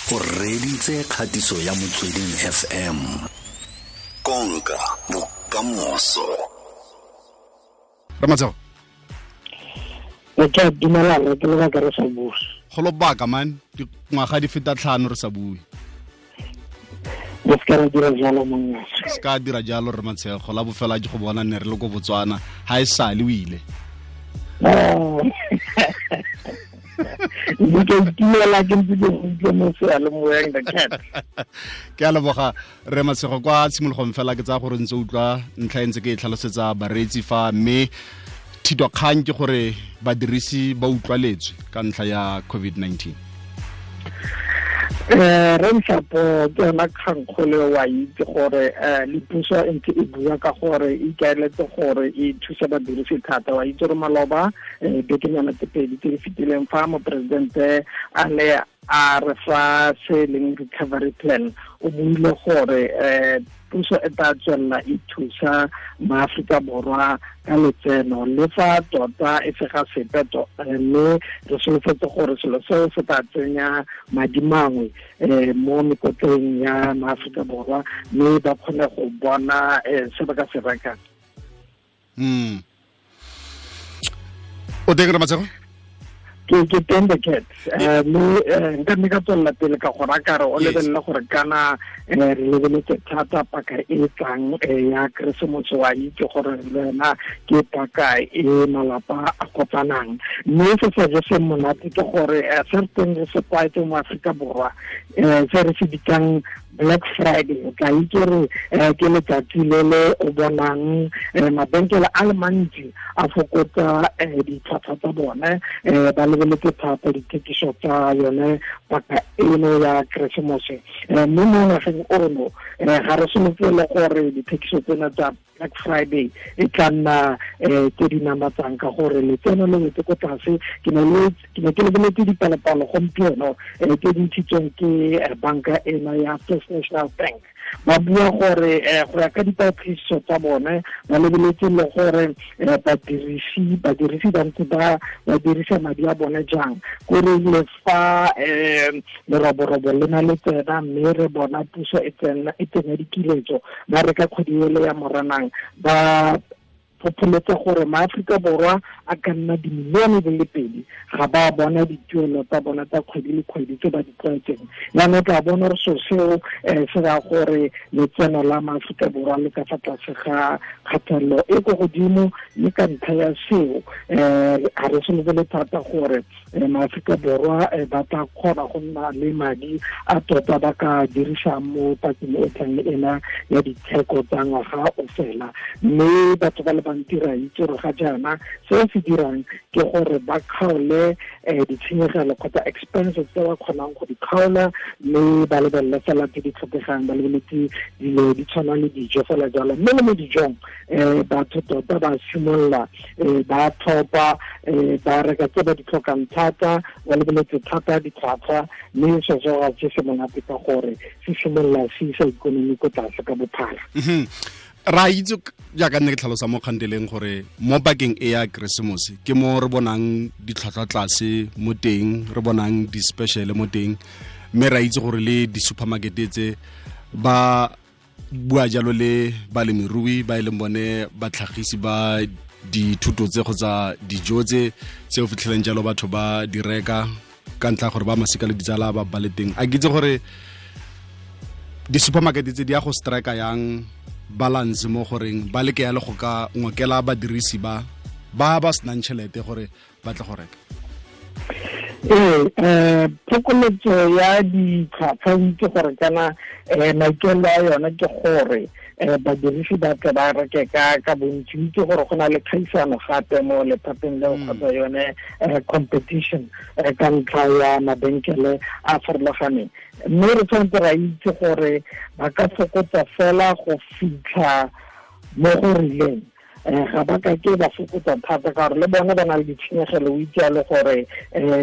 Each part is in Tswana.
O reditse kgatiso ya Motsweding FM. Konka bokamoso. Ramatsego. Ke a dumelana, ke lebaka re sa bue. Go lobaka man, dingwaga di feta 5 re sa bue. Re se ka ra dira jalo monna. Se ka dira jalo re Matshego, la bofela ke go bona ne re le ko Botswana, ha e sale o ile. Mme ke itumela ke ntse ke utlwe mo seyalemoyeng the cat. Ke a leboga re Matshego, kwa tshimologong fela ke tsaya gore ntse utlwa ntlha e ntse ke e tlhalosetsa bareetsi fa, mme thitokgang ke gore badirisi ba utlwaletswe ka ntlha ya COVID-19. Re Nhlapo, ke yona kgangkgolo wa itse gore le puso e ntse e bua ka gore e ikaeletse gore e thuse badirisi thata. Wa itse gore maloba bekenyana tse pedi tse di fetileng fa moporesidente a ne a re fa se leng recovery plan, o buile gore puso e tla tswelela e thusa maAforika Borwa ka letseno le fa tota e se ga sepe, mme re solofetse gore selo seo se tla tsenya madi mangwe mo mekotleng ya maAforika Borwa, mme ba kgone go bona se ba ka se rekang. O teng re Matshego? Ke teng the cat. Mme nka nne ka tswelela pele ka go raya re o lebelele gore kana re lebeletse thata paka e tlang ya Keresemose, wa itse gore le wena ke paka e malapa a kopanang. Mme se se je se monate ke gore se re teng re se tlwaetse mo Aforika Borwa, se re se bitsang Black Friday, o tla itse gore ke letsatsi le le o bonang mabenkele a le mantsi a fokotsa ditlhwatlhwa tsa bone, ba lebeletse thata dithekiso tsa yone paka eno ya Keresemose. Mme mo ngwageng ono ga re solofele gore dithekiso tsena tsa Black Friday e tla nna tse di namatsang, ka gore letseno le wetse ko tlase. Ke ne ke lebeletse dipalopalo gompieno tse di ntshitsweng ke banka ena ya First National Bank. Ba bua gore go ya ka dipatlisiso tsa bone, ba lebeletse le gore badirisi ba ntse ba dirisa madi a bone jang. Kore le fa leroborobo le na le tsena, mme re bona puso e tsenya dikiletso, ba reka kgwedi ele ya Moranang, ba phopholetsa gore maAforika Borwa a ka nna dimilione di le 2 ga ba bona dituelo tsa bona tsa kgwedi le kgwedi tse ba di tlwaetseng. Jaanong tla bona gore selo seo se raya gore letseno la maAforika Borwa le ka fa tlase ga kgatelelo e ko godimo, mme ka ntlha ya seo ga re solofele thata gore maAforika Borwa ba tla kgona go nna le madi a tota ba ka dirisang mo pakeng e tlang ena ya ditheko tsa ngwaga o fela. Mme batho ba le bantsi ra itse gore ga jaana se se dirang ke gore ba kgaole ditshenyegelo kgotsa expenses tse ba kgonang go di kgaola, mme ba lebelele fela tse di tlhokegang, ba lebeletse dilo di tshwana le dijo fela jalo. Mme le mo dijong batho tota ba simolola ba tlhopha, ba reka tse ba di tlhokang thata, ba lebeletse thata ditlhwatlhwa, mme se se ga se se monate ka gore se simolola se isa ikonomi ko tlase ka bophara. Ra itse jaaka nne ke tlhalosa mo kganteleng gore mo pakeng e ya Keresemose ke mo re bonang ditlhwatlhwa tlase mo teng, re bonang di-special mo teng, mme ra itse gore le di-supermarket tse ba bua jalo le balemirui ba e leng bone batlhagisi ba dithuto tse kgotsa dijo tse tse o fitlheleng jalo batho ba di reka ka ntlha gore ba masika le ditsala ba ba le teng. A ke itse gore di-supermarket tse di ya go strike yang balance mo goreng ba leke ya le go ka ngokela badirisi ba ba senang tšhelete gore ba tle go reka. Phokoletso ya ditlhwatlhwa o itse gore kana maikaelelo a yone ke gore badirisi ba tle ba reke ka bontsi. O itse gore go na le kgaisano gape mo lephateng leo kgotsa yone competition ka ntlha ya mabenkele a farologaneng. Mme re tshwanetse ra itse gore ba ka fokotsa fela go fitlha mo go rileng, ga ba ka ke ba fokotsa thata ka gore le bone ba na le ditshenyegelo. O itse le gore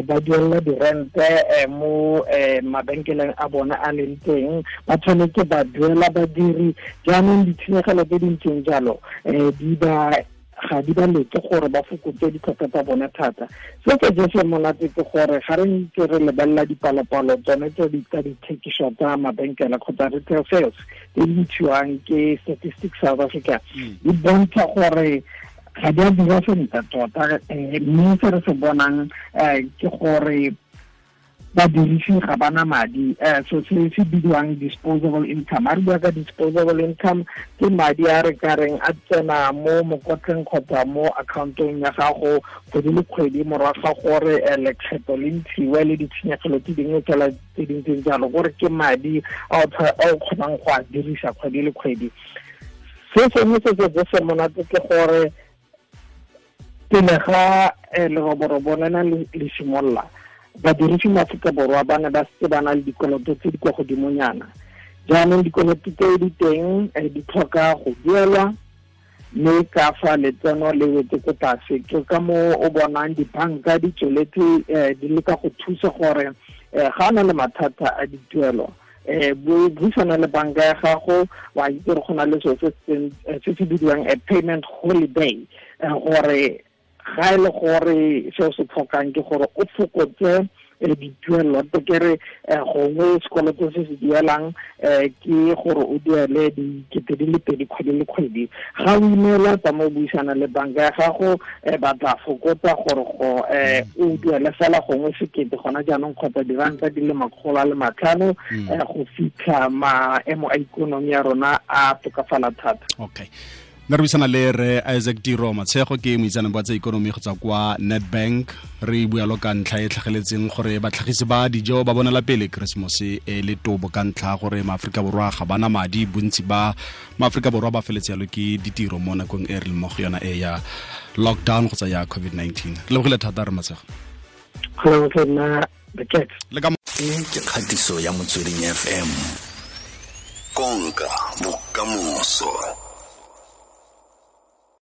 ba duelela dirente mo mabenkeleng a bone a leng teng, ba tshwanetse ba duela badiri. Jaanong ditshenyegelo tse di ntseng jalo di ba Ga di ba lete gore ba fokotse ditlhwatlhwa tsa bone thata. Se se jese monate ke gore ga re ntse re lebelela dipalopalo tsone tse di tsa dithekiso tsa mabenkele kgotsa retail sales tse di ntshiwang ke Statistics South Africa, di bontsha gore ga di a dira sentle tota, mme se re se bonang ke gore badirisi ga bana madi, so se se bidiwang disposable income. A re bua ka disposable income, ke madi a re ka reng a tsena mo mokotleng kgotsa mo accountong ya gago kgwedi le kgwedi morago ga gore lekgetho le ntshiwe le ditshenyegelo tse dingwe fela tse di ntseng jalo, gore ke madi a o kgonang go a dirisa kgwedi le kgwedi. Se sengwe se se se monate ke gore pele ga leroborobo lena le simolola, badirisi mo Aforika Borwa ba ne ba setse ba na le dikoloto tse di kwa godimonyana. Jaanong dikoloto tse di teng di tlhoka go duelwa, mme ka fa letseno le wetse ko tlase, ke ka mo o bonang dibanka di tsweletse di leka go thusa gore ga na le mathata a dituelo, buisana le banka ya gago. Wa itse gore go na le selo se se bidiwang a payment holiday, gore ga e le gore seo se tlhokang ke gore o fokotse dituelo, ke re gongwe sekoloto se se duelang ke gore o duele 2,000 kgwedi le kgwedi. Ga o ineela, tsa mo buisana le banka ya gago, ba tla fokotsa gore go o duele fela gongwe 1,000 gona jaanong kgotsa R500 go fitlha maemo a ikonomi ya rona a tokafala thata. Okay, nna re buisana le re Isaac Tiro Matshego, ke moitseanape wa tsa ikonomi go tswa kwa Nedbank. Re bua lo ka ntlha e tlhageletseng gore batlhagisi ba dijo ba bonela pele Keresemose e le tobo ka ntlha gore maAforika Borwa ga bana madi. Bontsi ba maAforika Borwa ba feletse yalo ke ditiro mo nakong e re leng mo go yona e ya lockdown kgotsa ya COVID-19. Re lebogile thata, re Matshego. Le ka ke kgatiso ya Motsweding FM, konka bokamoso.